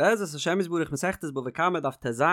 בעזרת השם יתברך מסכת בבא קמא דף טז,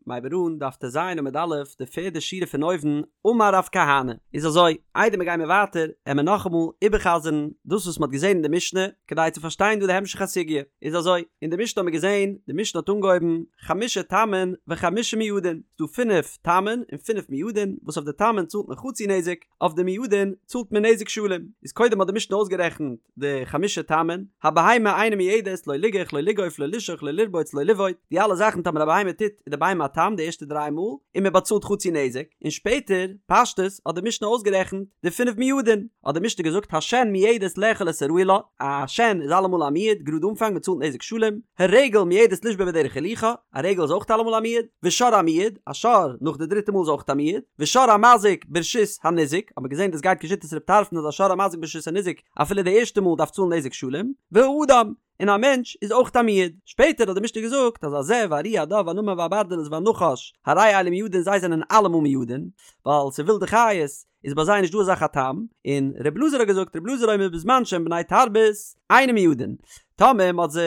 מ'הייבט אן דף טז עמוד א', די פערדע שורה פון אויבן, אמר רב כהנא, איז אזוי, איידער מיר גיימיר ווייטער, עמיר נאכאמאל איבערחזר'ן דאס וואס מ'האט געזען אין די משנה, כדי צו פארשטיין דא די המשך הסוגיא, איז אזוי, אין די משנה האט מען געזען, די משנה האט אנגעהויבן, חמשה תמין וחמשה מועדין, ס'דא פינף תמין און פינף מועדין, וואס אויף די תמין צאלט מען חצי נזק, אויף די מועדין צאלט מען נזק שלם, איז קודם האט די משנה אויסגערעכנט, די חמשה תמין, הבהמה אינה מועדת, לא ליגח, לא לגוף, לא לשוך, לא לרבוץ, לא לבעוט, די אלע זאכן טאמער א בהמה טוט איז די בהמה א תם די ערשטע דריי מאל, און מען באצאלט חצי נזק, און שפעטער, פשטות, האט די משנה אויסגערעכנט די פינף מועדין, האט די משנה געזאגט השן מועדת לאכול את הראוי לה, א שן איז אלעמאל א מועד, גראד אנפאנג מען צאלט נזק שלם, הרגל מועדת לשבור בדרך הילוכה, א רגל איז אויך אלעמאל א מועד, ושור המועד, א שור נאך די דריטע מאל איז אויך א מועד, ושור המזיק ברשות הניזק, האט מען געזען דאס גייט כשיטת ר' טרפון אז א שור המזיק ברשות הניזק אפילו די ערשטע מאל דארף צאלן נזק שלם, והאדם, און א מענטש איז אויך א מועד. שפעטער האט די משנה געזאגט אז הזאב והארי הדוב והנמר והברדלס והנחש הרי אלו מועדין זיי זענען אלעמאל מועדין, ווייל ס'איז ווילדע חיות, איז ביי זיי נישט דא אזא זאך א תם, און ר' אלעזר האט געזאגט ר' אלעזר אומר בזמן שהם בני תרבות אינם מועדין, טאמער מ'האט זיי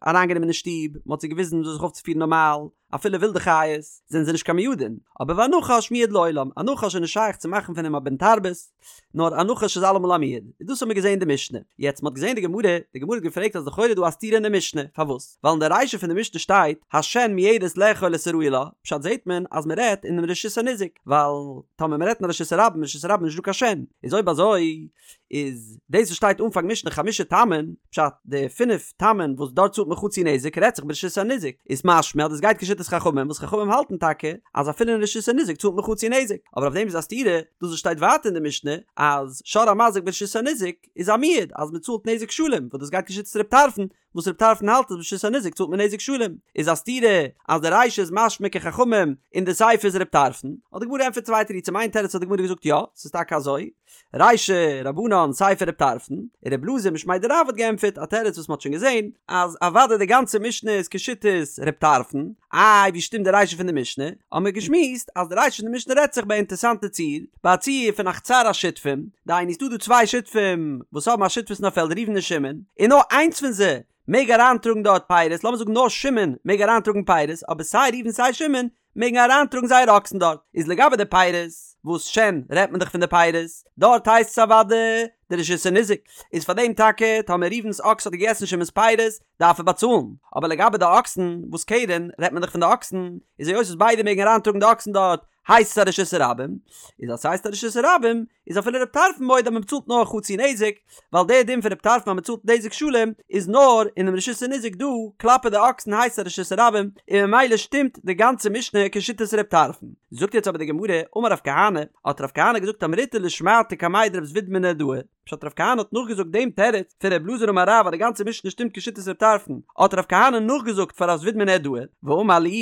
אריינגענומען אין שטוב, מ'האט זיי געוויזן וויאזוי זיך אויפצופירן נארמאל, אפילו ווילדע חיות, זענען זיי נישט קיין מועדין, אבער והנחש מועד לעולם, א נחש איז נישט שייך צו מאכן פון אים א בן תרבות, נאר א נחש איז אלעמאל א מועד, און דאס האבן מיר געזען אין די משנה. יעצט מ'האט געזען די גמרא, די גמרא האט געפרעגט אז לכאורה איז דא א סתירה אין די משנה, פארוואס? ווייל אין די רישא פון די משנה שטייט השן מועדת לאכול את הראוי לה, פשט זעט מען אז מ'רעדט אינעם רשות הניזק, ווייל טאמער מ'רעדט אין רשות הרבים, רשות הרבים איז נישט דא קיין שן, איז אויב אזוי איז דאס וואס שטייט אנפאנג משנה חמשה תמין, פשט די פינף תמין וואס דארט צאלט מען חצי נזק רעדט זיך ברשות הניזק, איז משמע אז דאס גייט כשיטת חכמים וואס חכמים האלטן טאקע אז אפילו אין רשות הניזק צאלט מען חצי נזק, אבער אויף דעם איז א סתירה דאס וואס שטייט ווייטער אין די משנה אז שור המזיק ברשות הניזק איז א מועד אז מען צאלט נזק שלם וואס דאס גייט כשיטת ר' טרפון וואס ר' טרפון האלט אז ברשות הניזק צאלט מען נזק שלם, איז א סתירה אז די רישא איז משמע כחכמים און די סיפא איז ר' טרפון, האט די גמרא געענטפערט צוויי תירוצים איין תירוץ האט די גמרא געזאגט יא ס'איז טאקע אזוי, רישא רבנן סיפא ר' טרפון, און ר' אלעזר משמיה דרב האט געענטפערט א תירוץ וואס מ'האט שוין געזען אז אוודאי די גאנצע משנה איז כשיטת ר' טרפון, איי ווי שטימט די רישא פון די משנה? האבן מיר געשמועסט אז די רישא פון די משנה רעדט זיך ביי א אינטערסאנטע ציור, ביי א ציור פון א חצר השותפים, דהיינו ס'דא דא צוויי שותפים וואס האבן א שותפות אין א פעלד ראובן און שמעון, און נאר איינס פון זיי מעג אריינטראגן דארט פירות, לאמיר זאגן נאר שמעון מעג אריינטראגן פירות, אבער סיי ראובן סיי שמעון מעגן אריינטראגן זייער אקסן דארט, איז לגבי די פירות, וואס שן רעדט מען דאך פון די פירות, דארט הייסט עס אוודאי די רשות הניזק, איז פאר דעם טאקע טאמער ראובן'ס אקס האט געגעסן שמעון'ס פירות, דארף ער באצאלן, אבער לגבי די אקסן, וואס קרן רעדט מען דאך פון די אקסן, איז היות וואס ביידע מעגן אריינטראגן די אקסן דארט, הייסט עס א רשות הרבים, איז אז ס'הייסט א רשות הרבים, איז אפילו רב טרפון מודה אז מען באצאלט נאר חצי נזק, ווייל דער דין פון רב טרפון אז מען צאלט נזק שלם איז נאר אינעם רשות הניזק דא, כלפי די אקסן הייסט עס א רשות הרבים, און ממילא שטימט די גאנצע משנה כשיטת רב טרפון. זאגט יעצט אבער די גמרא, אמר רב כהנא, האט רב כהנא געזאגט אמריתה לשמעתא קמיה דרב זביד מנהרדעא, פשט רב כהנא האט נאכגעזאגט דעם תירוץ פון רב אלעזר אמר רב אז די גאנצע משנה שטימט כשיטת רב טרפון, האט רב כהנא נאכגעזאגט פאר רב זביד מנהרדעא, ואמר להו,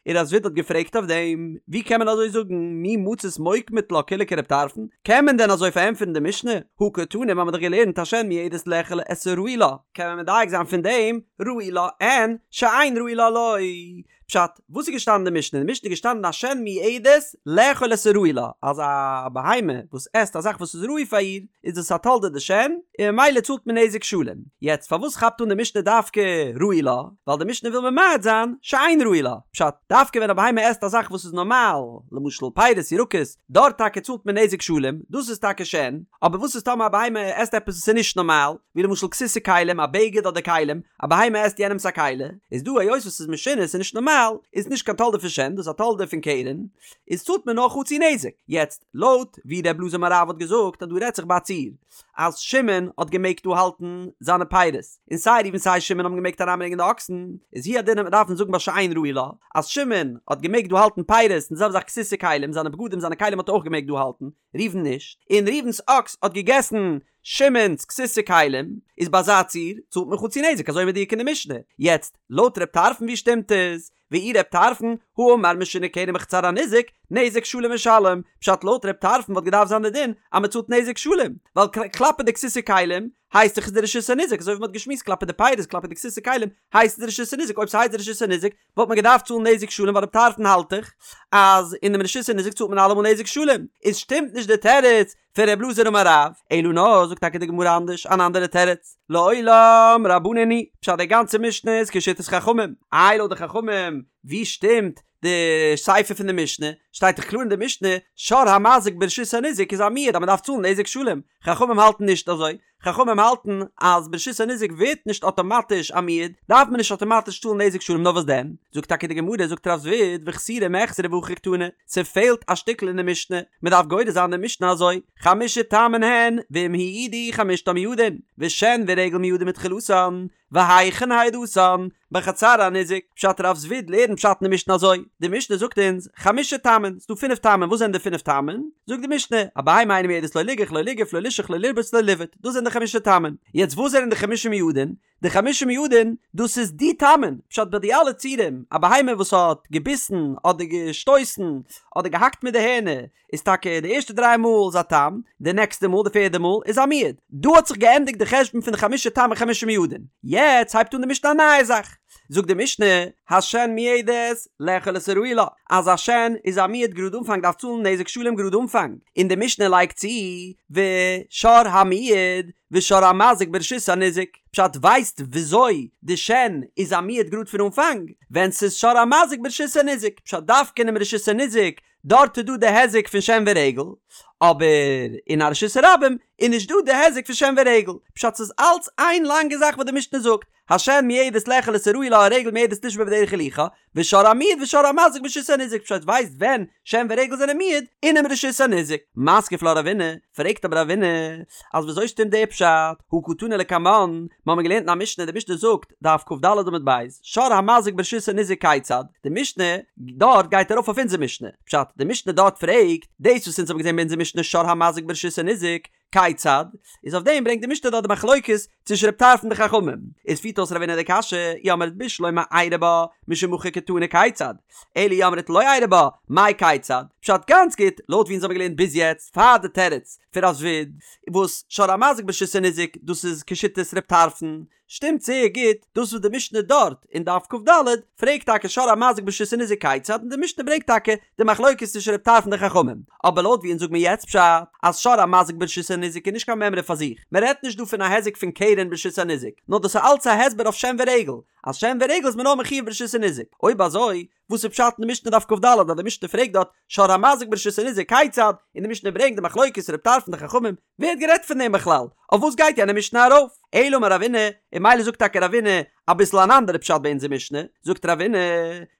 און רב זביד האט געפרעגט אויף דעם, ווי קען מען אזוי זאגן, מי מצית מוקמת לה כולה כרב טרפון, קען מען דען אזוי פארענטפערן די משנה, הא קתני מיר האבן דאך געלערנט השן מועדת לאכול את הראוי לה, קען מען מדייק זיין פון דעם, ראוי לה אין, שאין ראוי לה לא. פשט, וואס איז געשטאנען אין די משנה? אין די משנה איז געשטאנען השן מועדת לאכול את הראוי לה, אז א בהמה וואס עסט א זאך וואס איז ראוי פאר איר, איז דאס א תולדה דשן, און ממילא צאלט מען נזק שלם. יעצט פארוואס כאפט אן די משנה דווקא ראוי לה? ווייל די משנה וויל ממעט זיין שאין ראוי לה. פשט, דווקא ווען א בהמה עסט א זאך וואס איז נארמאל, למשל פירות ירקות, דארט טאקע צאלט מען נזק שלם, דאס איז טאקע שן, אבער וואס איז טאמער א בהמה עסט עפעס וואס איז נישט נארמאל, ווי למשל כסות וכלים, א בגד אדער כלים, א בהמה עסט יענעמס א כלי, איז דא היות וואס ס'איז משונה, ס'איז נישט נארמאל, איז נישט קיין תולדה פון שן, דאס איז א תולדה פון קרן, איז צאלט מען נאר חצי נזק. יעצט, לויט ווי ר' אלעזר אמר רב האט געזאגט אז דא רעדט זיך ביי א ציור, אז שמעון האט געמעגט דא האלטן זיינע פירות, און סיי ראובן סיי שמעון האבן געמעגט אריינברענגען די אקסן, איז הוא הדין וועט מען דארפן זאגן ביי שאין ראוי לה, אז שמעון האט געמעגט דא האלטן פירות, און די זעלבע זאך כסות וכלים, זיינע בגדים זיינע כלים האט ער אויך געמעגט דא האלטן, ראובן נישט, און ראובן'ס אקס האט געגעסן שמעון'ס כסות וכלים, איז ביי אזא ציור צאלט מען חצי נזק אזוי מדויק אין די משנה. יעצט, לויט ר' טרפון ווי שטימט עס? ואי ר' טרפון, האמר משונה קרן בחצר הניזק, נזק שלם משלם, פשט לויט ר' טרפון וואלט געדארפט זיין די דין אז מען צאלט נזק שלם, ווייל כלפי די כסות וכלים הייסט דאך עס די רשות הניזק, אזוי ווי מען האט געשמועסט כלפי די פירות כלפי די כסות וכלים הייסט עס די רשות הניזק, אויב ס'הייסט די רשות הניזק וואלט מען געדארפט צאלן נזק שלם ווייל ר' טרפון האלט דאך אז אינעם רשות הניזק צאלט מען אלעמאל נזק שלם, איז שטימט נישט די תירוץ פון ר' אלעזר אמר רב, אלא נאר זאגט טאקע די גמרא אנדערש אן אנדערע תירוץ, לעולם רבנן היא, פשט די גאנצע משנה איז כשיטת חכמים, איי לויט די חכמים ווי שטימט די סיפא פון די משנה, שטייט דאך קלאר אין די משנה שור המזיק ברשות הניזק איז א מועד אז מען דארף צאלן נזק שלם, חכמים האלטן נישט אזוי, חכמים האלטן אז ברשות הניזק ווערט נישט אטאמאטיש א מועד, דארף מען נישט אטאמאטיש צאלן נזק שלם נאר וואס דען? זאגט טאקע די גמרא זאגט רב זביד וחסורי מיחסרא והכי קתני, ס'פעלט א שטיקל אין די משנה, מ'דארף גורס זיין די משנה אזוי, חמשה תמין הן ואם הועדו חמשתן מועדין, ושן ורגל מועדין מתחילתן, והיכן העדתן? בחצר הניזק, פשט רב זביד לערנט פשט אין די משנה אזוי, די משנה זאגט אונז, חמשה תמין, ס'דא פינף תמין, וואס זענען די פינף תמין? זאגט די משנה, א בהמה אינה מועדת לא ליגח לא ליגוף לא לישוך לא לרבוץ לא לבעוט, דאס זענען די חמשה תמין. יעצט וואס זענען די חמשה מועדין? די חמשה מועדין, דאס איז די תמין, פשט ביי די אלע ציורים, א בהמה וואס האט געביסן אדער געשטויסן אדער געהאקט מיט די הערנער, איז טאקע די ערשטע דריי מאל איז א תם, די נעקסטע מאל, די פערדע מאל, איז א מועד. דא האט זיך געענדיגט די חשבון פון די חמשה תמין חמשה מועדין. יעצט הייבט אן די משנה א נייע זאך. זאגט די משנה, השן מועדת לאכול את הראוי לה, אז א שן איז א מועד גראד אנפאנג דארף צאלן נזק שלם גראד אנפאנג, און די משנה לייגט צו, ושור המועד ושור המזיק ברשות הניזק. פשט ווייסט וויאזוי די שן איז א מועד גראד פון אנפאנג? ווען ס'איז שור המזיק ברשות הניזק. פשט דווקא אינעם רשות הניזק דארט איז דא די היזק פון שן ורגל, אבער אין א רשות הרבים איז נישט דא די היזק פון שן ורגל, פשט ס'איז אלץ איין לאנגע זאך וואס די משנה זאגט, השן מועדת לאכול את הראוי לה הרגל מועדת לשבור בדרך הילוכה, ושור המועד ושור המזיק ברשות הניזק, פשט ווייסט ווען שן ורגל זענען מועד, אינעם רשות הניזק. מתקיף לה רבינא, פרעגט אבער רבינא, אז וויאזוי שטימט די פשט, הא קתני לקמן, מ'האמיר געלערנט אין א משנה, די משנה זאגט, דף כ"ד עמוד ב', שור המזיק ברשות הניזק כיצד? די משנה דארט גייט ארויף אויף אונזער משנה, פשט, די משנה דארט פרעגט, דאס וואס אונז האבן געזען ביי אונזער משנה שור המזיק ברשות הניזק, כיצד? איז אויף דעם ברענגט די משנה דארט די מחלוקת צווישן רב טרפון און די חכמים, איז פירט אויס רבינא די קשיא, אי אמרת בשלמא איירי בה, משום הכי קתני כיצד? אלא אי אמרת לא איירי בה, מאי כיצד? פשט גאנץ גוט, לויט ווי אונז האבן געלערנט ביז יעצט, פאר די תירוץ פון רב זביד, וואס שור המזיק ברשות הניזק, דאס איז כשיטת רב טרפון, שטימט זייער גוט דאס וואס די משנה דארט אין דף כ"ד פרעגט טאקע שור המזיק ברשות הניזק כיצד און די משנה ברענגט טאקע די מחלוקת צווישן רב טרפון און די חכמים אבער לויט ווי אונז זאג מיר יעצט פשט אז שור המזיק ברשות הניזק איז נישט קיין מימרא פאר זיך מען רעדט נישט דא פון א היזק פון קרן ברשות הניזק נאר דאס איז אלץ א הסבר אויף שן ורגל אז שן ורגל איז מען נאר מחויב ברשות הניזק אויב אזוי וואס איז פשט אין די משנה דף כ"ד אז די משנה פרעגט דארט שור המזיק ברשות הניזק כיצד און די משנה ברענגט די מחלוקת רב טרפון די חכמים ווער האט גערעדט פון דעם בכלל? אויף וואס גייט יענע משנה ארויף? אלא אמר רבינא, און ממילא זאגט טאקע רבינא אביסל אן אנדערע פשט ביי אונזער משנה, זאגט רבינא,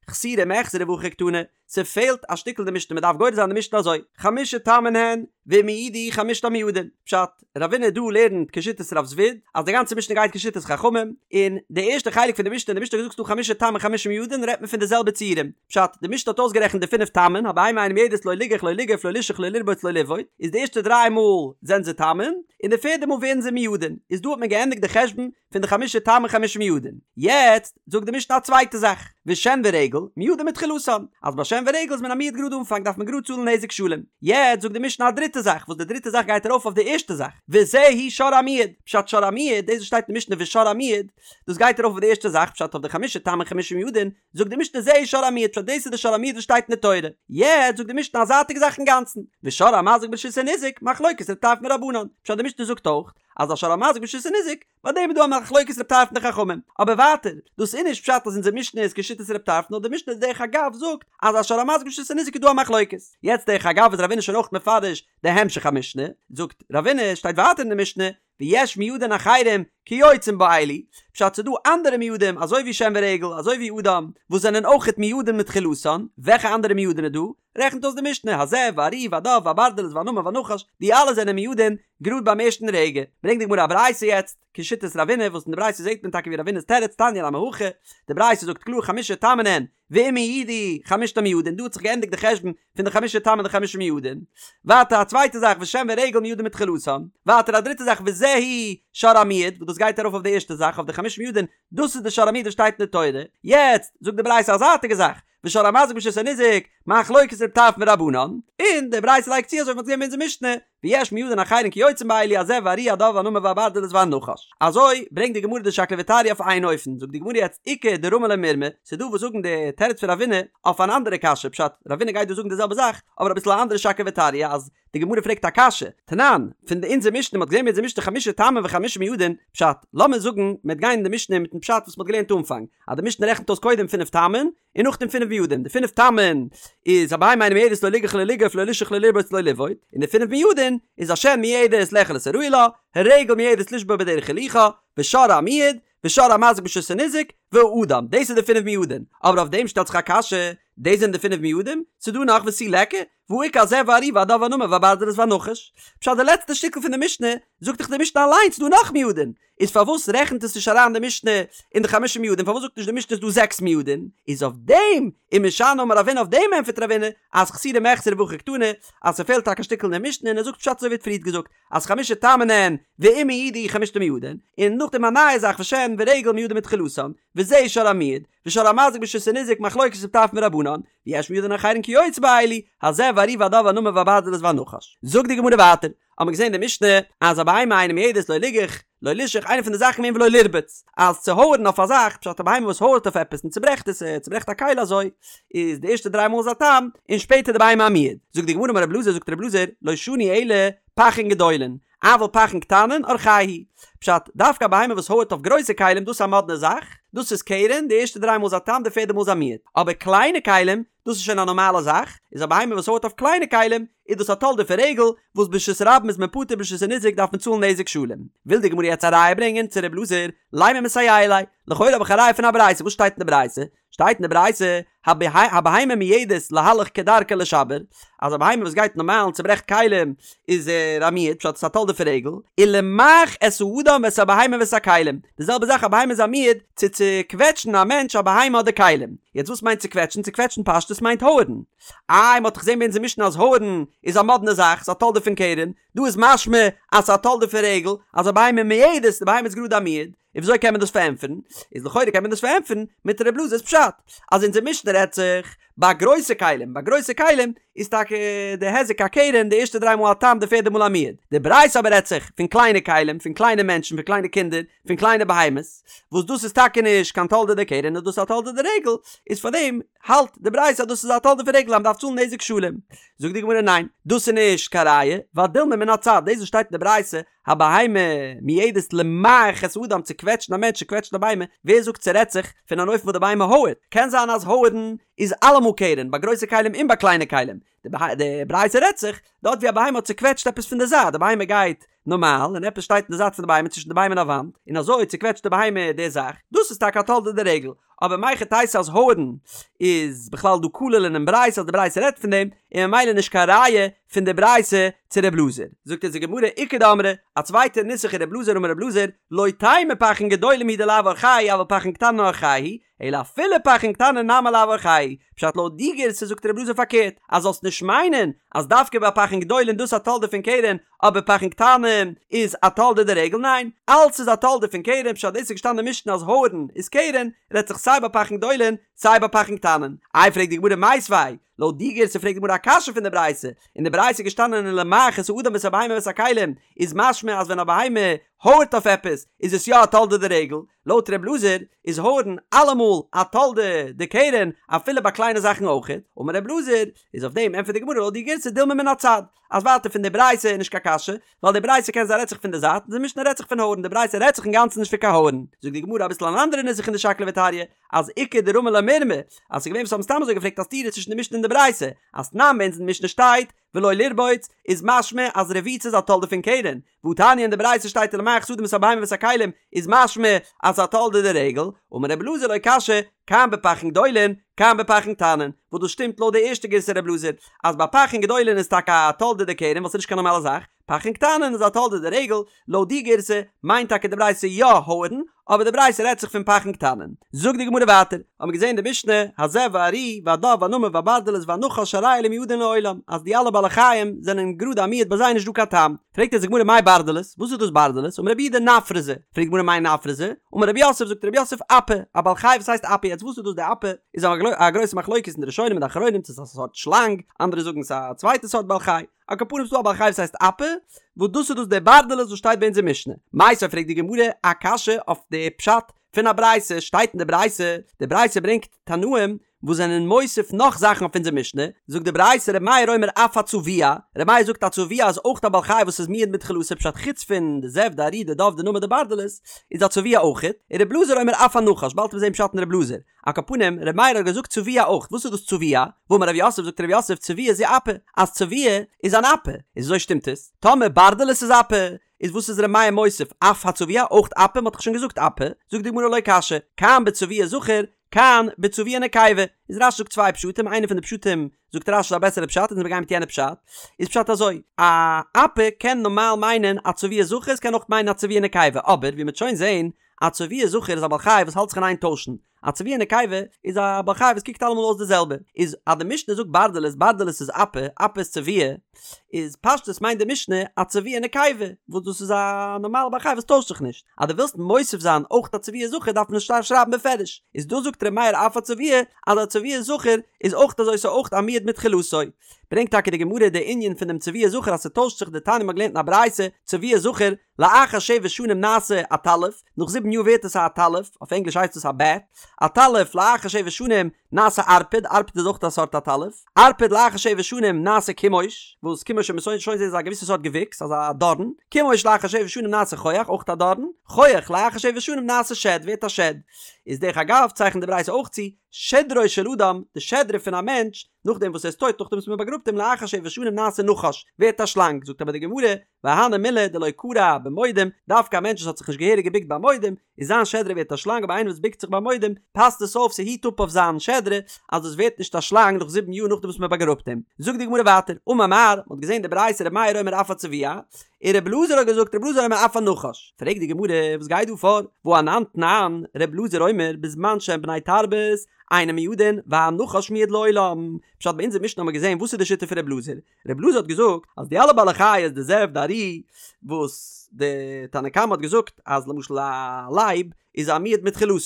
חסורי מיחסרא והכי קתני, ס'פעלט א שטיקל אין די משנה מ'דארף גורס זיין די משנה אזוי, חמשה תמין הן, ואם הועדו חמשתן מועדין, פשט, רבינא דא לערנט כשיטת רב זביד, אז די גאנצע משנה גייט כשיטת חכמים, און די ערשטע חלק פון די משנה, די משנה האט געזאגט ס'דא חמשה תמין חמשה מועדין רעדט מען פון די זעלבע ציורים, פשט, די משנה האט אויסגערעכנט די פינף תמין, הבהמה אינה מועדת לא ליגח לא ליגוף לא לישוך לא לרבוץ לא לבעוט, איז די ערשטע דריי מאל זענען זיי תמין, און די פערדע מאל ווערן זיי מועדין, איז דא האט מען געענדיגט די חשבון פון די חמשה תמין חמשה מועדין. יעצט זאגט די משנה א צווייטע זאך, ושן ורגל מועדין מתחילתן, אז ביי שן ורגל איז מען א מועד גראד אנפאנג דארף מען גראד צאלן נזק שלם. יעצט זאגט די משנה א דריטע זאך, וואס די דריטע זאך גייט ארויף אויף די ערשטע זאך, וזהו שור המועד, פשט שור המועד, דאס וואס שטייט אין די משנה ושור המועד, דאס גייט ארויף אויף די ערשטע זאך, פשט אויף די חמשה תמין חמשה מועדין, זאגט די משנה זהו שור המועד פשט דאס איז די שור המועד וואס שטייט אין די תורה, יעצט זאגט די משנה א זייטיגע זאך אינגאנצן, ושור המזיק ברשות הניזק, מחלוקת ר' טרפון ורבנן, פשט די משנה זאגט אויך אז א שור המזיק ברשות הניזק, ביי דעם איז דא א מחלוקת ר' טרפון די חכמים, אבער ווייטער, דאס איז נישט פשט אז אונזער משנה איז כשיטת ר' טרפון נאר די משנה דרך אגב זאגט אז א שור המזיק ברשות הניזק איז דא א מחלוקת, יעצט דרך אגב איז רבינא שוין אויך מפרש די המשך המשנה, זאגט רבינא שטייט ווייטער אין די משנה ויש מועדין אחרים כיוצאים באלו, פשט ס'דא אנדערע מועדים אזוי ווי שן ורגל אזוי ווי אדם וואס זענען אויכעט מועדים מתחילתן, וועלכע אנדערע מועדין איז דא? רעכנט אויס די משנה, הזאב והארי והדוב והברדלס והנמר והנחש, די אלע זענען מועדין גראד ביים ערשטן רגע. ברענגט די גמרא א ברייתא יעצט, כשיטת רבינא, וואס אין די ברייתא זעט מען טאקע ווי רבינא'ס תירוץ, תניא נמי הכי, די ברייתא זאגט קלאר חמשה תמין הן, ואם הועדו חמשתן מועדין, דא האט זיך געענדיגט די חשבון פון די חמשה תמין און די חמשה מועדין. ווייטער א צווייטע זאך ושן ורגל מועדין מתחילתן. ווייטער א דריטע זאך וזהו שור המועד, וואס דאס גייט ארויף אויף די ערשטע זאך אויף די חמשה מועדין, דאס איז די שור המועד וואס שטייט אין די תורה. יעצט זאגט די ברייתא א זייטיגע זאך, ושור המזיק ברשות הניזק, מחלוקת ר' טרפון ורבנן, און די ברייתא לייגט צו אזוי ווי מ'האט געזען ביי אונזער משנה, ויש מועדין אחרים כיוצא באלו הזאב והארי הדוב והנמר והברדלס והנחש. אזוי ברענגט די גמרא די שקלא וטריא אויף איין אופן, זאגט די גמרא יעצט איכא דרמי לה מירמא, ס'איז דא וואס זאגן די תירוץ פון רבינא אויף אן אנדערע קשיא, פשט, רבינא גייט דא זאגן די זעלבע זאך, אבער אביסל א אנדערע שקלא וטריא, אז די גמרא פרעגט א קשיא, תנן, פון די אונזער משנה, מ'האט געזען ביי אונזער משנה חמשה תמים וחמשה מועדין, פשט, לאמיר זאגן מ'וועט גיין אין די משנה מיטן פשט וואס מ'האט געלערנט אנפאנג, אז די משנה רעכנט אויס קודם פינף תמין, און נאכדעם פינף מועדין, די פינף תמין איז הבהמה אינה מועדת לא ליגח לא לגוף לא לישוך לא לרבוץ לא לבעוט, און די פינף מועדין איז השן מועדת לאכול את הראוי לה, הרגל מועדת לשבור בדרך הילוכה, ושור המועד, ושור המזיק ברשות הניזק, והאדם, דאס איז די פינף מועדין, אבער אויף דעם שטעלט זיך א קשיא, דאס זענען די פינף מועדים? ס'דא נאך ותו ליכא, והא איכא הזאב והארי והדוב והנמר והברדלס והנחש. פשט די לעצטע שטיקל פון די משנה, זאגט דאך די משנה אליינס ס'דא נאך מועדין, איז פארוואס רעכנט עס נישט אריין די משנה אין די חמשה מועדין, פארוואס זאגט נישט די משנה ס'דא זעקס מועדין, איז אויף דעם ומשני אמר רבינא אויף דעם ענטפערט רבינא אז חסורי מחסרא והכי קתני אז ס'פעלט טאקע א שטיקל אין די משנה און ער זאגט פשט אזוי ווי ער האט פריערט געזאגט אז חמשה תמין הן ואם הועדו חמשתן מועדין, און נאכדעם א נייע זאך ושן ורגל מועדין מתחילתן, וזה שור המועד, ושור המזיק ברשות הניזק מחלוקת ר' טרפון ורבנן, ויש מועדין אחרים כיוצא באלו, הזאב והארי והדוב והנמר והברדלס והנחש. זאגט די גמרא ווייטער, האט מען געזען אין די משנה אז א בהמה אינה מועדת לא ליגח לא לישוך איינע פון די זאכן געווען ולא לרבוץ אז צו הויערן אויף א זאך פשט א בהמה וואס הויערט אויף עפעס און צוברעכט עס ער צוברעכט א כלי אזוי איז די ערשטע דריי מאל איז א תם און שפעטער די בהמה א מועד זאגט די גמרא אמר רב אלעזר זאגט רב אלעזר לא שנו אלא פכין גדולין אבל פכין קטנין אורחייהו פשט דווקא א בהמה וואס הויערט אויף גרויסע כלים דאס איז א מאדנע זאך דאס איז קרן די ערשטע דריי מאל איז א תם די פערדע מאל איז א מועד אבער קליינע כלים דאס איז שוין א נארמאלע זאך, איז א בהמה וואס הויערט אויף קליינע כלים, איז דאס א תולדה פון רגל, וואס ברשות הרבים איז מען פטור ברשות הניזק דארף מען צאלן נזק שלם. וויל די גמרא יעצט א ראיה ברענגען צו ר' אלעזר, לימא מסייע ליה, לכאורה האב איך א ראיה פון א ברייתא, וואס שטייט אין די ברייתא? שטייט אין די ברייתא, הבהמה מועדת להלך כדרכה לשבר, אז א בהמה וואס גייט נארמאל און צוברעכט כלים איז ער א מועד, פשט עס איז א תולדה פון רגל, ולמעך את האדם ואת הבהמה ואת הכלים, די זעלבע זאך א בהמה איז א מועד צו צוקוועטשן א מענטש א בהמה אדער כלים, יעצט וואס מיינט צוקוועטשן? צוקוועטשן פשטות מיינט הויערן, איי מ'האט דאך געזען ביי אונזער משנה אז הויערן איז א מאדנע זאך, ס'איז א תולדה פון קרן, דא איז משמע אז ס'איז א תולדה פון רגל, אז א בהמה מועדת, די בהמה איז גראדע א מועד, און וויאזוי קען מען דאס פארענטפערן? איז לכאורה קען מען דאס פארענטפערן מיט ר' אלעזר'ס פשט, אז אונזער משנה רעדט זיך ביי גרויסע כלים, ביי גרויסע כלים איז טאקע די היזק א קרן די ערשטע דריי מאל א תם די פערדע מאל א מועד, די ברייתא אבער רעדט זיך פון קליינע כלים, פון קליינע מענטשן, פון קליינע קינדער, פון קליינע בהמות, וואס דאס איז טאקע נישט קיין תולדה דקרן נאר דאס איז א תולדה דרגל, איז פארדעם האלט די ברייתא אז דאס איז א תולדה פון רגל אז מען דארף צאלן נזק שלם. זאגט די גמרא ניין, דאס איז נישט קיין ראיה, ווייל דילמא מן הצד, דאס וואס שטייט אין די ברייתא הבהמה מועדת למעך את האדם צו קוועטשן א מענטש צו קוועטשן א בהמה, ווער זאגט ס'רעדט זיך פון אן אופן וואס די בהמה הויערט? קען זיין אז הויערן איז אלעמאל קרן ביי גרויסע כלים און ביי קליינע כלים, די ברייתא רעדט זיך דארט ווי א בהמה האט צוקוועטשט עפעס פון די זייט, די בהמה גייט נארמאל און עפעס שטייט אין די זייט פון די בהמה צווישן די בהמה און א וואנט, און אזוי צוקוועטשט די בהמה די זאך, דאס איז טאקע א תולדה דרגל, אבער מהיכי תיתי אז הויערן איז בכלל דא כולל אינעם ברייתא אז די ברייתא רעדט פון דעם, און ממילא נישט קיין ראיה פון די ברייתא צו ר' אלעזר. זאגט אונז די גמרא איכא דאמרי, א צווייטע נוסח אין ר' אלעזר אמר ר' אלעזר, לא תימא פכין גדולים הוא דלאו אורחייהו אבל פכין קטנין אורחייהו, אלא אפילו פכין קטנין נמי לאו אורחייהו, פשט לויט די גירסא זאגט ר' אלעזר פארקערט, אז זאלסט נישט מיינען אז דווקא ביי פכין גדולים דאס א תולדה פון קרן, אבער פכין קטנים איז א תולדה דרגל, ניין, אלץ איז א תולדה פון קרן, פשט דאס איז געשטאנען אין משנה אז הויערן איז קרן, רעדט זיך סיי ביי פכין גדולים סיי ביי פכין קטנים. איי פרעגט די גמרא מיתיבי, לויט די גירסא פרעגט די גמרא א קשיא פון די ברייתא, אין די ברייתא איז געשטאנען ולמעך את האדם ואת הבהמה ואת הכלים, איז משמע אז ווען א בהמה הויערט אויף עפעס איז עס יא א תולדה דרגל, לויט ר' אלעזר איז הויערן אלעמאל א תולדה דקרן אפילו ביי קליינע זאכן אויכעט, אמר ר' אלעזר, איז אויף דעם ענטפערט די גמרא לויט די גירסא דילמא מן הצד, אז ווייטער פון די ברייתא איז נישט קיין קשיא, ווייל די ברייתא קען זיין רעדט זיך פון די זייט און די משנה רעדט זיך פון הויערן, די ברייתא רעדט זיך אינגאנצן נישט פון קיין הויערן. זאגט די גמרא אביסל אן אנדערע נוסח אין די שקלא וטריא, אז איכא דרמי לה מירמא, אז ס'איז געווען וואס האבן סתם אזוי געפרעגט א סתירה צווישן די משנה און די ברייתא, אז תנן ביי אונז אין די משנה שטייט ולא לרבוץ, איז משמע אז רביצה איז א תולדה פון קרן, והתניא אין די ברייתא שטייט ולמעך את האדם ואת הבהמה ואת הכלים, איז משמע אז ס'איז א תולדה דרגל, אמר רבי אלעזר לא קשיא, כאן בפכין גדולין, כאן בפכין קטנין, וואס דאס שטימט לויט די ערשטע גירסא רבי אלעזר, אז ביי פכין גדולין איז טאקע א תולדה דקרן ווייל ס'איז נישט קיין נארמאלע זאך, פחין קטנין איז א תולדה דרגל, לויט די גירסא מיינט טאקע די ברייתא יא הויערן, אבער די ברייתא רעדט זיך פון פחין קטנין. זאגט די גמרא ווייטער, האבן מיר געזען די משנה, הזאב והארי והדוב והנמר והברדלס והנחש הרי אלו מועדין לעולם, אז די אלע בעלי חיים זענען גראדע א מועד ביי זיי איז נישט דא קיין תם. פרעגט אונז די גמרא מאי ברדלס, וואס איז דאס ברדלס? אמר רב יהודה נפרזא, פרעגט די גמרא מאי נפרזא? אמר רב יוסף, זאגט רב יוסף אפא, א בעל חי וואס הייסט אפא, יעצט וואס איז דאס די אפא? איז א גרויסע מחלוקת אין די ראשונים און די אחרונים צו ס'איז א סארט שלאנג, אנדערע זאגן ס'איז א צווייטע סארט בעל חי. על כל פנים ס'דא א בעל חי וואס הייסט אפא, וואס דאס איז דאס דער ברדלס וואס שטייט ביי אונזער משנה. מיתיבי פרעגט די גמרא א קשיא אויף די פשט פון א ברייתא, שטייט אין די ברייתא, די ברייתא ברענגט תנאים וואס זענען מוסיף נאך זאכן אויף אונזער משנה, זאגט די ברייתא ר' מאיר אומר אף הצבוע, ר' מאיר זאגט א צבוע איז אויך א בעל חי וואס איז מועד מתחילתו פשט חוץ פון די זאב די ארי די דוב די נמר די ברדלס איז א צבוע אויכעט, און ר' אלעזר אומר אף הנחש, באלד וועט מען זען פשט אין ר' אלעזר. על כל פנים, ר' מאיר האט געזאגט צבוע אויך, וואס איז דאס צבוע? והאמר רב יוסף זאגט רב יוסף צבוע זו אפא, אז צבוע איז אן אפא, איז וויאזוי שטימט עס? טאמער ברדלס איז אפא, איז וואס איז ר' מאיר מוסיף אף הצבוע אויך אפא, מ'האט דאך שוין געזאגט אפא, זאגט די גמרא לא קשיא, כאן בצבוע זכר, כאן בצבוע נקבה, איז רש"י זאגט צוויי פשטים, איינע פון די פשטים זאגט רש"י איז א בעסערע פשט אונז מיר גייען מיט יענע פשט, איז פשט אזוי, א אפא קען נארמאל מיינען א צבוע זכר, עס קען אויך מיינען א צבוע נקבה, אבער ווי מ'וועט שוין זעהן, א צבוע זכר איז א בעל חי וואס האלט זיך אין איין טוישן, א צבוע נקבה איז א בעל חי וואס קוקט אלעמאל אויס די זעלבע, איז אז די משנה זאגט ברדלס, ברדלס איז אפא, אפא איז צבוע, איז פשטות מיינט די משנה א צבוע נקבה, וואס דאס איז א נארמאלע בעל חי וואס טוישט זיך נישט, אז דו ווילסט מוסיף זיין אויך א צבוע זכר דארף מען עס שטארק שרייבן בפירוש, איז דא זאגט ר' מאיר אף הצבוע אז א צבוע זכר איז אויך אזוי ס'איז אויך א מועד מתחילתו. ברענגט טאקע די גמרא די ענין פון דעם צבוע זכר אז ס'טוישט זיך דתניא מ'האט געלערנט אין א ברייתא צבוע זכר לאחר שבע שנים נעשה עטלף, נאך זיבן יאר ווערט עס א עטלף, אויף ענגליש הייסט עס א בעט, עטלף לאחר שבע שנים נעשה ערפד, ערפד איז אויך א סארט עטלף, ערפד לאחר שבע שנים נעשה כומוש, וואס כומוש וועט מען שוין זעהן איז א געוויסע סארט געוויקס, אזא דארן, כומוש לאחר שבע שנים נעשה חוח, אויך א דארן, חוח לאחר שבע שנים נעשה שד, ווערט א שד. איז דרך אגב צייכנט די ברייתא אויך צו, שדרו של אדם, די שדרה פון א מענטש, נאכדעם וואס ער איז טויט, נאכדעם וואס מען באגראבט אים לאחר שבע שנים נעשה נחש, ווערט א שלאנג, זאגט אבער די גמרא, והני מילי דלא כרע במודים, דווקא א מענטש וואס האט זיך נישט געהעריג געבוקט ביי מודים, איז זיין שדרה ווערט א שלאנג אבער איינער וואס בוקט זיך ביי מודים, פאסט עס אויף ס'היט אפ אויף זיין שדרה אז דאס ווערט נישט א שלאנג נאך זיבן יאר נאכדעם וואס מען באגראבט אים. זאגט די גמרא ווייטער, אמר מר, מ'האט געזען די ברייתא ר' מאיר אומר אף הצבוע, און ר' אלעזר האט געזאגט ר' אלעזר אומר אף הנחש. פרעגט די גמרא, וואס גייט דא פאר? והא אנן תנן, ר' אלעזר אומר בזמן שהן בני תרבות, אינן מועדין, והנחש מועד לעולם. פשט ביי אונזער משנה האט מען געזען וואס איז די שיטה פון ר' אלעזר, ר' אלעזר האט געזאגט אז די אלע בעלי חיות די זאב די ארי וואס די תנא קמא האט געזאגט אז למשל א לייב איז א מועד מתחילתו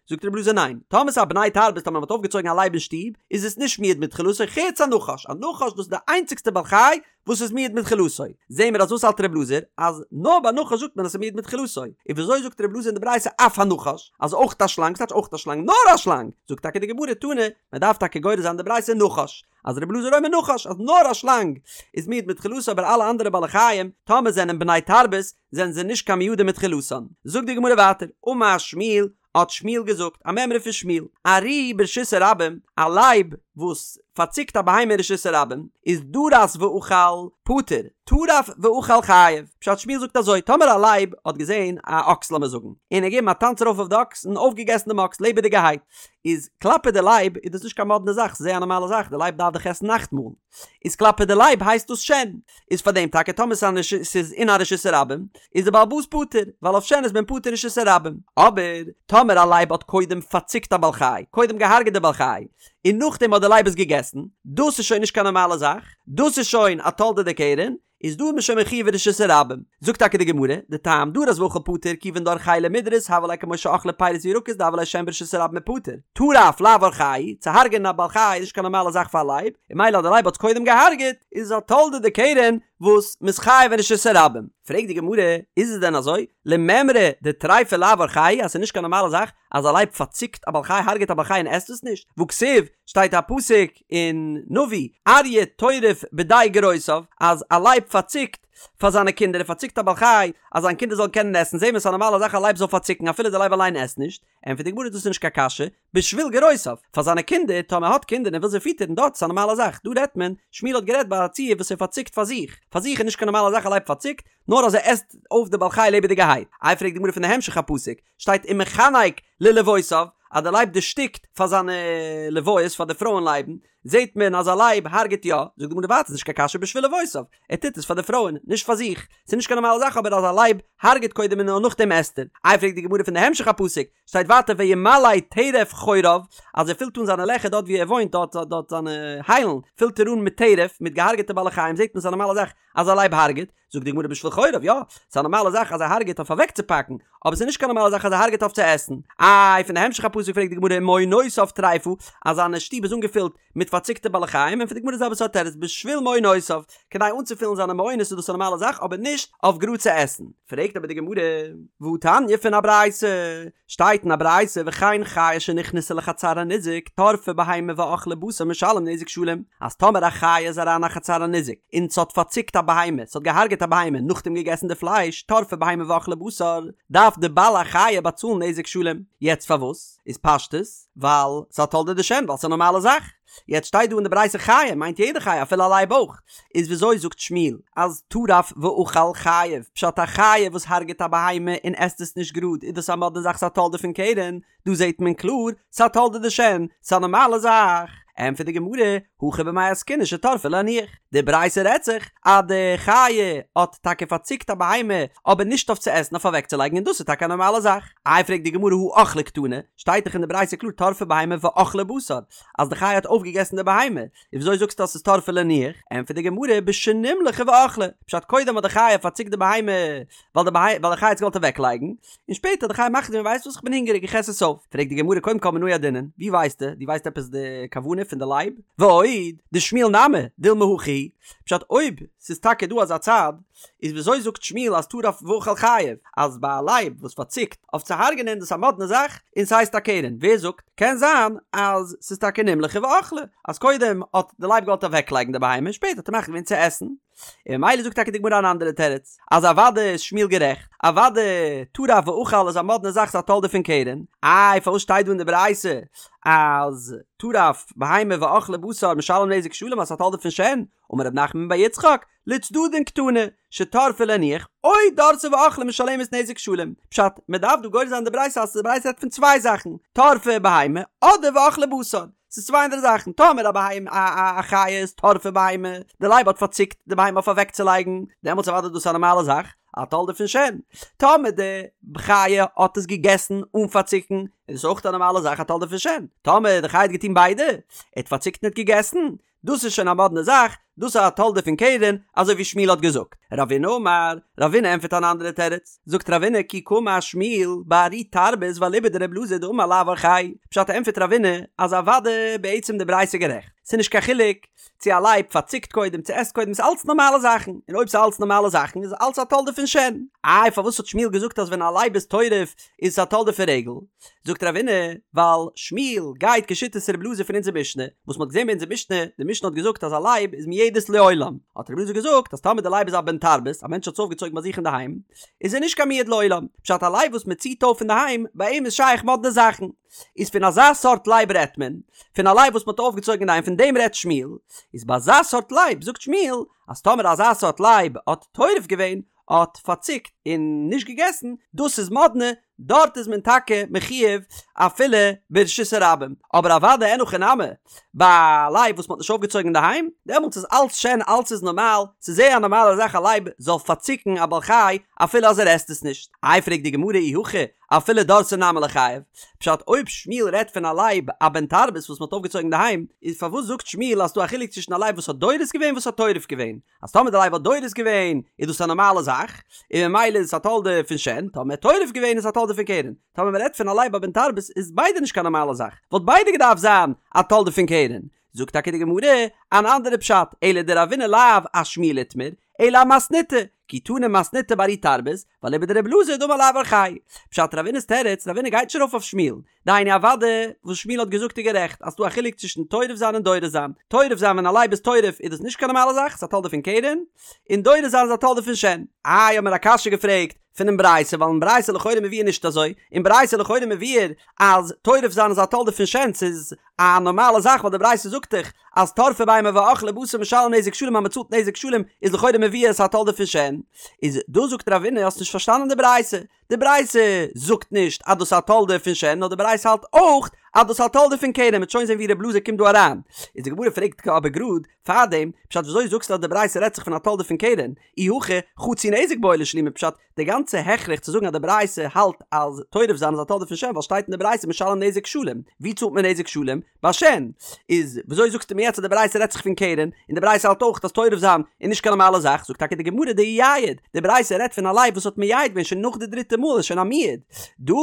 זאגט ר' אלעזר ניין טאמער ס'איז א בני תרבות טאמער מ'האט אויפגעצויגן א לייב אין שטוב איז עס נישט מועד מתחילתו חוץ א נחש א נחש דאס איז די איינציגסטע בעל חי וואס איז מועד מתחילתו זעהן מיר אז וואס האלט ר' אלעזר אז נאר ביי נחש זאגט מען אז ס'איז מועד מתחילתו און וויאזוי זאגט ר' אלעזר אין די ברייתא אף הנחש אז אויך א שלאנג ס'טייטש אויך א שלאנג נאר א שלאנג זאגט טאקע די גמרא תנא מ'דארף טאקע גורס זיין די ברייתא נחש אז רבי אלעזר אומר נחש אז נאר א שלאנג איז מועד מתחילתו אבער אלע אנדערע בעלי חיים טאמער זענען בני תרבות זענען זיי נישט קיין מועדים מתחילתן. זאגט די גמרא ווייטער אמר שמואל האט שמואל געזאגט א מימרא פון שמואל ארי ברשות הרבים א לייב וואס פארציקט א בהמה אין רשות הרבים איז דרס ואכל פטור טרף ואכל חייב פשט שמואל זאגט אזוי טאמער א לייב האט געזען א אקס לאמיר זאגן און ער געגעבן א טאנץ ארויף אויף די אקס און אויפגעגעסן דעם אקס לעבעדיגערהייט איז כלפי די לייב איז דאס נישט קיין מאדנע זאך, ס'איז זייער א נארמאלע זאך, די לייב דארף דאך עסן נאכטמאל, איז כלפי די לייב הייסט דאס שן, איז פאר דעם טאקע טאמער ס'איז אין א רשות הרבים איז די בעל הבית פטור, ווייל אויף שן איז מען פטור אין רשות הרבים, אבער טאמער א לייב האט קודם פארציקט א בעל חי, קודם געהארגעט די בעל חי, און נאכדעם האט די לייב עס געגעסן, דאס איז שוין נישט קיין נארמאלע זאך, דאס איז שוין א תולדה דקרן, איז דא איז מען שוין מחויב אין רשות הרבים. זאגט טאקע די גמרא, די טעם דרס ואכל פטור כיוון דאורחיה למידרס הוה ליה כמו שאכלה פירות וירקות דהוה ליה שן ברשות הרבים ופטור. טרף לאו אורחיה, צו הרג'ענען א בעל חי איז נישט קיין נארמאלע זאך פאר א לייב, און ממילא אז די לייב האט עס קודם געהארגעט, איז עס א תולדה דקרן וואס מ'איז חייב אין רשות הרבים. פרעגט די גמרא, איז עס דען אזוי? למימרא דטריפה לאו אורחיה אז ס'איז נישט קיין נארמאלע זאך אז א לייב פארציקט א בעל חי הרג'עט א בעל חי און עסט עס נישט? והכתיב, שטייט א פסוק אין נביא, אריה טורף בדי גרותיו, אז א לייב פארציקט פאר זיינע קינדער, ער פארציקט א בעל חי אז זיין קינדער זאלן קענען עסן, זעהן מיר ס'איז א נארמאלע זאך א לייב זאל פארציקן אפילו די לייב אליין עסט נישט, ענטפערט די גמרא דאס איז נישט קיין קשיא, בשביל גרותיו, פאר זיינע קינדער, טאמער ער האט קינדער און ער וויל זיי פיטערן דארט איז א נארמאלע זאך, דא רעדט מען, שמואל האט גערעדט ביי א ציור וואס ער פארציקט פאר זיך, פאר זיך איז נישט קיין נארמאלע זאך א לייב פארציקט, נאר אז ער עסט אויף די בעל חי לעבעדיגערהייט, איי פרעגט די גמרא פון די המשך הפסוק, שטייט ומחנק ללבאותיו, אז די לייב דערשטיקט פאר זיינע לבאות, פאר די פרויען לייבן, זעט מען אז א לייב הרג'ט יא, זאגט די גמרא ווייטער ס'נישט קיין קשיא בשביל אבותיו, ער טוט עס פאר די פרויען, נישט פאר זיך, ס'איז נישט קיין נארמאלע זאך אבער אז א לייב הרג'ט קודם און נאר נאכדעם עסט ער. איי פרעגט די גמרא פון די המשך הפסוק, שטייט ווייטער וימלא טרף חוריו, אז ער פילט אן זיינע לעכער דארט ווי ער וואוינט דארט דארט זיינע היילן פילט ער אן מיט טרף, מיט געהארגעטע בעלי חיים, זעט מען ס'איז א נארמאלע זאך אז א לייב הרג'ט, זאגט די גמרא בשביל חוריו, יא, ס'איז א נארמאלע זאך אז ער הרג'ט אויף אוועקצופאקן, אבער ס'איז נישט קיין נארמאלע זאך אז ער הרג'ט אויף צו עסן. איי פון די המשך הפסוק פרעגט די גמרא ומעונותיו טריפה, אז זיינע שטוב איז אנגעפילט מיט פארציקטע בעלי חיים, ענטפערט די גמרא די זעלבע סארט תירוץ בשביל מעונותיו, כדי אנצופילן זיינע מעונות איז דאס א נארמאלע זאך אבער נישט אויף גראד צו עסן. פרעגט אבער די גמרא, והתניא פון א ברייתא, שטייט אין א ברייתא וכן חיה שנכנסה לחצר הניזק טרפה בהמה ואכלה בשר משלם נזק שלם, אז טאמער א חיה איז אריין א חצר הניזק און ס'האט פארציקט א בהמה, ס'האט געהארגעט א בהמה נאכדעם געגעסן די פלייש, טרפה בהמה ואכלה בשר, דארף די בעל החיה באצאלן נזק שלם. יעצט פארוואס? איז פשטות ווייל ס'איז א תולדה דשן ווייל ס'איז א נארמאלע זאך. יעצט שטייט דא אין די ברייתא חיה מיינט יעדע חיה אפילו א לייב אויך. איז וויאזוי זאגט שמואל אז טרף ואכל חייב, פשט א חיה וואס הרג'ט א בהמה און עסט עס נישט גראד איז דאס א מאדנע זאך ס'איז א תולדה פון קרן, דא זעט מען קלאר ס'איז א תולדה דשן, ס'איז א נארמאלע זאך. ענטפערט די גמרא, הכא במאי עסקינן שטרפה להניח, די ברייתא רעדט זיך אז די חיה האט טאקע פארציקט א בהמה אבער נישט אויף צו עסן אויף אוועקצולייגן און דאס איז טאקע א נארמאלע זאך. איי פרעגט די גמרא הא אכלה קתני, שטייט דאך אין די ברייתא קלאר טרפה בהמה ואכלה בשר, אז די חיה האט אויפגעגעסן די בהמה, איז וויאזוי זאגסטו אז ס'איז טרפה להניח? ענטפערט די גמרא בשנמלכה ואכלה, פשט קודם האט די חיה פארציקט די בהמה ווייל די ווייל די חיה האט עס געוואלט אוועקלייגן, און שפעטער האט די חיה מחליט געווען ווייסט וואס איך בין הונגעריג איך עס עס אויף, פרעגט די גמרא קודם כל מנא ידעינן, ווי ווייסטו? דו ווייסט עפעס די כוונה פון די לייב? ועוד, דשמואל נמי, דילמא הכי, פשט אויב ס'איז טאקע דא אזא צד, איז וויאזוי זאגט שמואל אז טרף ואכל חייב, אז ביי א לייב וואס פארציקט אויף צו הרג'נען דאס א מאדנע זאך און ס'הייסט א קרן, ווער זאגט? קען זיין אז ס'איז טאקע נמלכה ואכלה, אז קודם האט די לייב געוואלט אוועקלייגן די בהמה שפעטער האט ער מחליט געווען צו עסן, און ממילא זאגט טאקע די גמרא אן אנדערע תירוץ, אז אוודאי איז שמואל גערעכט, אוודאי טרף ואכל איז א מאדנע זאך ס'איז א תולדה פון קרן, איי פארוואס שטייט דא אין די ברייתא אז טרף בהמה ואכלה בשר משלם נזק שלם אז ס'איז א תולדה פון שן, אמר רב נחמן בר יצחק, לצדדין קתני, שטרפה להניח, או דרסה ואכלה משלמת נזק שלם. פשט, מען דארף דא גורס זיין די ברייתא אז די ברייתא רעדט פון צוויי זאכן, טרפה בהמה אדער ואכלה בשר. ס'איז צוויי אנדערע זאכן, טאמער א בהמה א א חיה איז טרפה בהמה, די לייב האט פארציקט די בהמה אויף אוועקצולייגן, דעמאלטס אוודאי איז דאס א נארמאלע זאך, א תולדה פון שן. טאמער די חיה האט עס געגעסן אן פארציקן, איז דאס אויך א נארמאלע זאך א תולדה פון שן. טאמער די חיה האט געטון ביידע, ער האט פארציקט און האט געגעסן, דאס איז שוין א מאדנע זאך, דאס איז א תולדה פון קרן, אזוי ווי שמואל האט געזאגט. רבינא אמר, רבינא ענטפערט אן אנדערע תירוץ, זאגט רבינא כי קאמר שמואל בארי תרבות ואליבא דרבי אלעזר דאמר לאו אורחיה, פשט ענטפערט רבינא אז אוודאי בעצם די ברייתא גערעכט, ס'איז נישט קיין חילוק צו א לייב פארציקט קודם צו עסט קודם ס'איז אלץ נארמאלע זאכן, און אויב ס'איז אלץ נארמאלע זאכן איז אלץ א תולדה פון שן. איי פארוואס האט שמואל געזאגט אז ווען א לייב איז טורף איז עס א תולדה פון רגל? זאגט רבינא, ווייל שמואל גייט כשיטת רבי אלעזר פון אונזער משנה, וואס מ'האט געזען ביי אונזער משנה, די משנה האט געזאגט אז א לייב איז מועדת לעולם, האט רבי אלעזר געזאגט אז טאמער די לייב איז א בן תרבות, א מענטש האט עס אויפגעצויגן ביי זיך אינדערהיים, איז ער נישט קיין מועד לעולם, פשט א לייב וואס מ'ציט אויף אינדערהיים, ביי אים איז שייך מאדנע זאכן. איז פון אזא סארט לייב רעדט מען, פון א לייב וואס מ'האט אויפגעצויגן אינדערהיים פון דעם רעדט שמואל, איז ביי אזא סארט לייב זאגט שמואל, אז טאמער אזא סארט לייב האט טורף געווען, האט פארציקט און נישט געגעסן, דאס איז מאדנע, דארט איז מען טאקע מחויב אפילו ברשות הרבים, אבער אוודאי אין הכי נמי, ביי א לייב וואס מען האט נישט אויפגעצויגן אינדערהיים, דעמאלטס איז אלץ שן אלץ איז נארמאל, ס'איז זייער א נארמאלע זאך א לייב זאל פארציקן א בעל חי אפילו אז ער עסט עס נישט. איי פרעגט די גמרא אי הכי אפילו דרסה נמי ליחייב, פשט אויב שמואל רעדט פון א לייב א בן תרבות וואס מען האט אויפגעצויגן אינדערהיים, איז פארוואס זאגט שמואל אז ס'דא א חילוק צווישן א לייב וואס האט דורס געווען וואס האט טורף געווען, אז טאמער די לייב האט דורס געווען איז דאס א נארמאלע זאך, און ממילא איז עס א תולדה פון שן, טאמער ער האט טורף געווען איז עס א תולדה פון קרן, טאמער מען רעדט פון א לייב א בן תרבות איז ביידע נישט קיין נארמאלע זאך, וואלט ביידע געדארפט זיין א תולדה פון קרן. זאגט טאקע די גמרא אן אנדערע פשט, אלא דרבינא לאו אשמואל איתמר, אלא אמתניתא, כי תנא מתניתא בארי תרבות, ואליבא דרבי אלעזר דאמר לאו אורחיה. פשט רבינא'ס תירוץ, רבינא גייט נישט ארויף אויף שמואל, דהיינו אוודאי וואס שמואל האט געזאגט איז גערעכט אז ס'דא א חילוק צווישן טורף זיין און דורס זיין, טורף זיין ווען א לייב איז טורף איז דאס נישט קיין נארמאלע זאך, ס'איז א תולדה פון קרן, און דורס זיין איז א תולדה פון שן. איי האט מען א קשיא געפרעגט פונעם ברייתא ווייל אין ברייתא לכאורה מבואר נישט אזוי, אין ברייתא לכאורה מבואר אז טורף זיין איז א תולדה פון שן ס'איז א נארמאלע זאך ווייל די ברייתא זאגט דאך אז טרפה בהמה ואכלה בשר משלם נזק שלם אז מ'צאלט נזק שלם איז לכאורה מבואר ס'איז א תולדה פון שן, איז דא זאגט רבינא האסט נישט פארשטאנען די ברייתא, די ברייתא זאגט נישט אז דאס איז א תולדה פון שן נאר די ברייתא האלט אויך אז דאס איז א תולדה פון קרן, מ'וועט שוין זען ווי ר' אלעזר קומט דא אריין. איז די גמרא פרעגט אבער גראד פארדעם, פשט וויאזוי זאגסטו אז די ברייתא רעדט זיך פון א תולדה פון קרן, אי הכי חצי נזק בעי לשלומי פשט די גאנצע הכרח צו זאגן אז די ברייתא האלט אז טורף זיין איז א תולדה פון שן ווייל שטייט אין די ברייתא משלם נזק שלם, ווי צאלט מען נזק שלם? ביי שן. איז וויאזוי זאגסטו מיר יעצט אז די ברייתא רעדט זיך פון קרן, און די ברייתא האלט אויך אז טורף זיין איז נישט קיין נארמאלע זאך, זאגט טאקע די גמרא דאייעד, די ברייתא רעדט פון א לייב וואס האט מייעד געווען שוין נאך די דריטע מאל איז שוין א מועד, דא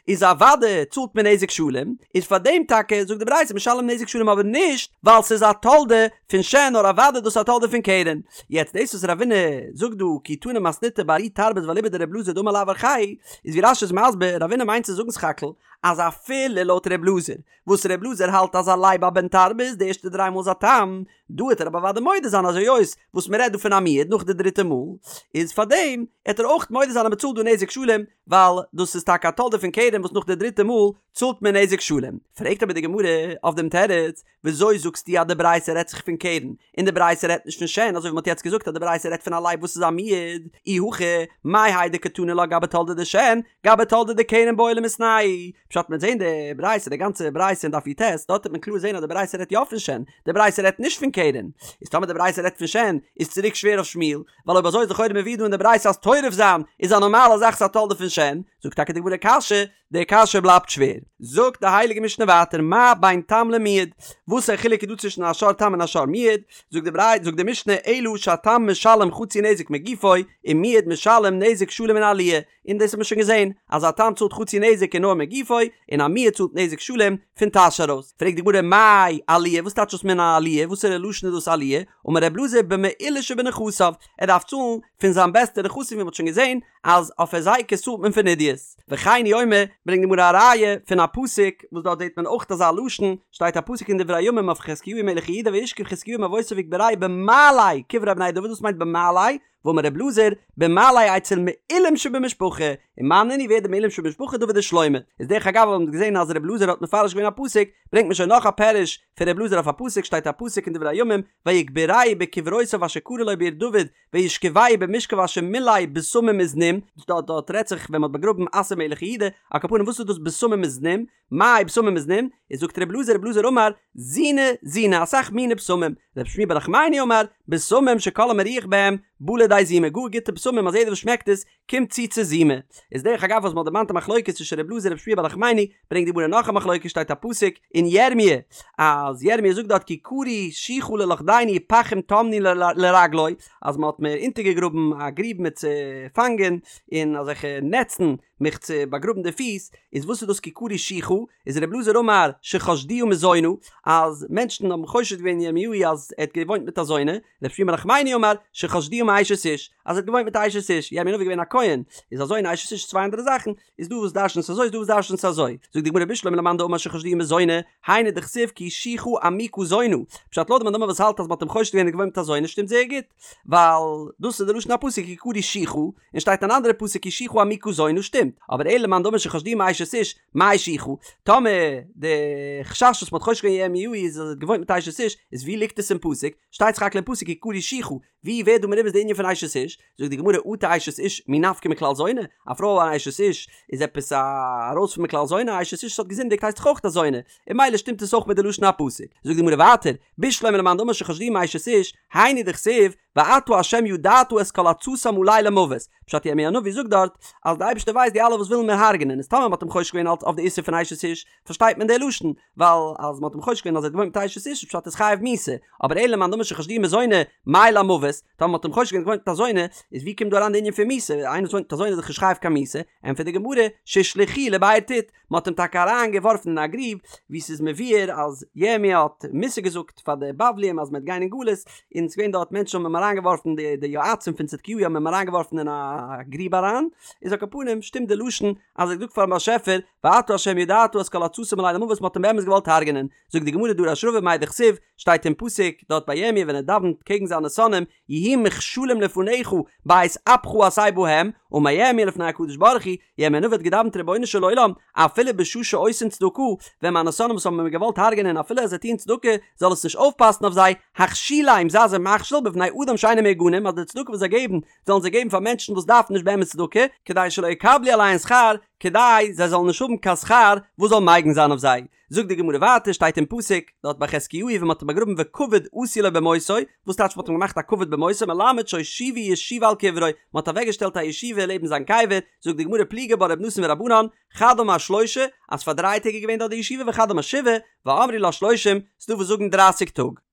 איז אוודאי צאלט מען נזק שלם, איז פאר דעם טאקע זאגט די ברייתא משלם נזק שלם אבער נישט ווייל ס'איז א תולדה פון שן נאר אוודאי דאס איז א תולדה פון קרן. יעצט דאס וואס רבינא זאגט דא כי תנא מתניתא בארי תרבות ואליבא דר' אלעזר דאמר לאו אורחיה איז ווי רש"י איז מסביר רבינא מיינט צו זאגן סך הכל אז אפילו לויט ר' אלעזר וואס ר' אלעזר האלט אז א לייב א בן תרבות די ערשטע דריי מאל איז א תם דא העט ער אבער אוודאי מודה זיין אז היות וואס מען רעדט דא פון א מועד נאך די דריטע מאל איז פארדעם העט ער אויך מודה זיין אז מען צאלט דא נזק שלם ווייל דאס איז טאקע א תולדה פון קרן וואס נאך די דריטע מאל צאלט מען נזק שלם. פרעגט אבער די גמרא אויף דעם תירוץ, וויאזוי זאגסטו אז די ברייתא רעדט זיך פון קרן און די ברייתא רעדט נישט פון שן אזוי ווי מען האט יעצט געזאגט אז די ברייתא רעדט פון א לייב וואס איז א מועד, אי הכי מאי האי דקתני לה גבי תולדה דשן גבי תולדה דקרן בעי למיתנייהו, פשט מ'וועט זעהן די ברייתא די גאנצע ברייתא אין דף י"ט דארט וועט מען קלאר זעהן אז די ברייתא רעדט יא פון שן, די ברייתא רעדט נישט פון קרן, איז טאמער די ברייתא רעדט פון שן איז צוריק שווער אויף שמואל, ווייל אויב אזוי איז לכאורה מבואר דא אין די ברייתא אז טורף זיין איז א נארמאלע זאך ס'איז א תולדה פון שן, זאגט טאקע די גמרא קשיא, די קשיא בלייבט שווער. זאגט די הייליגע משנה ווייטער מה בין תם למועד, וואס א חילוק איז דא צווישן א שור תם און א שור מועד, זאגט די ברייתא זאגט די משנה אלא שהתם משלם חצי נזק מגופו ומועד משלם נזק שלם מן העליה, און דאס האט מען שוין געזען אז א תם צאלט חצי נזק און נאר מגופו, און א מועד צאלט נזק שלם פון טאש ארויס. פרעגט די גמרא מאי עליה, וואס טייטש דאס מן העליה, וואסערע לשון איז דאס עליה, אמר ר' אלעזר במעולה שבנכסיו, ער דארף צאלן פון זיין בעסטע נכסים ווי מען האט שוין געזען אז אויף היזקות צאלט מען פון עידית. וכן הוא אומר, ברענגט די גמרא א ראיה פון א פסוק וואס דארט זעט מען אויך אזא לשון, שטייט א פסוק אין דברי הימים אויף חזקיהו מלך יהודה וישכב חזקיהו עם אבותיו ויקברוהו במעלה קברי בני דוד וואס מיינט במעלה? ואמר ר' אלעזר, במעלה אצל מעולים שבמשפחה, און מאן נינהו ווער די מעולים שבמשפחה דוד ושלמה, איז דרך אגב האבן מיר געזען אז ר' אלעזר האט מפרש געווען א פסוק, ברענגט מען שוין נאך א פירוש פון ר' אלעזר אויף א פסוק, שטייט א פסוק אין דברי הימים, ויקברוהו בקברותיו אשר כרה לו בעיר דוד, וישכבהו במשכב אשר מלא בשמים וזנים, דארט דארט רעדט זיך ווען מען האט באגראבן אסא מלך יהודה, על כל פנים וואס איז דאס בשמים וזנים? מאי בשמים וזנים? איז זאגט ר' אלעזר ר' אלעזר אמר, זיני זיני אסאך מיני בשמים, ר' שמואל בר נחמני אמר, בשמים שכל המריח בהם בא לידי זימה, גאר גוטע בשמים אז יעדער וואס שמעקט עס קומט צו צו זימה. איז דרך אגב וואס מען האט דערמאנט א מחלוקת צווישן ר' אלעזר און ר' שמואל בר נחמני, ברענגט די גמרא נאך א מחלוקת שטייט א פסוק אין ירמי' אז ירמי' זאגט דארט כי כרו שוחה ללכדני פחים טמנו לרגלי אז מען האט מיר אונטערגעגראבן א גריב מיר צו פאנגען און אזעלכע נעצן מיך צו באגראבן די פיס, איז וואס איז דאס כי כרו שוחה? איז ר' אלעזר אמר שחשדוה מזונה, אז מענטשן האבן חושד געווען ירמיהו אז ער האט געוואוינט מיט א זונה, ר' שמואל בר נחמני אמר שחשדוה מאשת איש, אז ער האט געוואוינט מיט א אשת איש, ירמי' הנביא איז געווען א כהן, איז א זונה אשת איש צוויי אנדערע זאכן, איז דא וואס דרש'נט עס אזוי איז דא וואס דרש'נט עס אזוי, זאגט די גמרא בשלמא למאן דאמר שחשדוה מזונה, היינו דכתיב כי שוחה עמוקה זונה, פשט לויט די מאן דאמר וואס האלט אז מען האט אים חושד געווען ער האט געוואוינט מיט א זונה שטימט זייער גוט, ווייל דאס איז די לשון הפסוק כי כרו שוחה, און שטייט אן אנדערע פסוק כי שוחה עמוקה זונה שטימט, אבער אלא למאן דאמר שחשדוה מאשת איש, מאי שוחה? טאמער די חשש וואס מ'האט חושד געווען ירמיהו איז אז ער האט געוואוינט מיט אשת איש, איז ווי ליגט עס אין פסוק? שטייט סך הכל אין פסוק כי כרו שוחה, ווי ווערט דא מרומז די ענין פון אשת איש? זאגט די גמרא אטו אשת איש מי נפקא מכלל זונה? א פרוי אן אשת איש איז עפעס א ארויס פון מכלל זונה? א אשת איש וואס האט געזינדיגט הייסט דאך אויך א זונה, און ממילא שטימט עס אויך מיט די לשון הפסוק. זאגט די גמרא ווייטער, בשלמא למאן דאמר שחשדוה מאשת איש, היינו דכתיב, ואתה ה' ידעת את כל עצתם עלי למוות, פשט ירמי' הנביא זאגט דארט אז די אייבערשטער ווייסט די אלע וואס ווילן מיר הרג'נען, איז טאמער מ'האט אים חושד געווען אלץ אויף די איסור פון אשת איש, פארשטייט מען די לשון, ווייל אז מ'האט אים חושד געווען אז ער האט געוואוינט מיט אשת איש איז פשט ער איז חייב מיתה, אבער אלא למאן דאמר שחשדוה מזונה, מאי למוות, טאמער מ'האט אים חושד געווען געוואוינט מיט א זונה, איז ווי קומט דא אריין די ענין פון מיתה, איינער וואס וואוינט מיט א זונה איז דאך נישט חייב קיין מיתה, ענטפערט די גמרא, שהושלכוהו לבאר טיט, מען האט אים טאקע אריין געווארפן אין א גריב, ווי ס'איז מבואר אז ירמי' האט מוסר געזאגט פאר די בבלים אז מען וועט גיין אין גלות, און ס'איז געווען דארט מענטשן האבן אים אריין געווארפן די די יועצים פון צדקיהו האבן אים אריין געווארפן אין א גריב אריין, איז על כל פנים שטימט די לשון אז ער האט געזאגט פארן באשעפער ואתה ה' ידעת את כל עצתם עלי למוות מען האט אים באמת געוואלט הרג'נען, זאגט די גמרא דרש רבא מאי דכתיב, שטייט אין פסוק דארט ביי ירמי' ווען ער דאווענט קעגן זיינע שונאים, יהיו מכשולים לפניך בעת אפך עשה בהם, אמר ירמיה לפני הקדוש ברוך הוא, ירמיה הנביא האט געדאווענט רבונו של עולם, אפילו בשעה שעושין צדקה, ווען מיינע שונאים וואס האבן מיר געוואלט הרג'ענען אפילו אז זיי טוען צדקה, זאל עס נישט אויפפאסן אויף זיי, הכשילם זיי זיי מכשיל בבני אדם. שאינם מהוגנים אז די צדקה וואס זיי געבן זאלן זיי געבן פאר מענטשן וואס דארפן נישט באמת צדקה, כדי שלא יקבלו עליהן שכר, כדי זיי זאלן נישט האבן קיין שכר וואס זאל מגין זיין אויף זיי. זאגט די גמרא ווייטער, שטייט אין פסוק, דארט ביי חזקיהו ווען מען האט אים באגראבן וכבוד עשו לו במותו, וואס טייטש מען האט אים געמאכט א כבוד במותו, מלמד שהושיבו ישיבה על קברו, מען האט אוועקגעשטעלט א ישיבה לעבן זיין קבר, זאגט די גמרא פליגי בה ר' נתן ורבנן, חד אמר שלשה, אז פאר דריי טעג איז געווען דארט די ישיבה וחד אמר שבעה, ואמרי לה שלושים, ס'דא וואס זאגן דרייסיג טאג.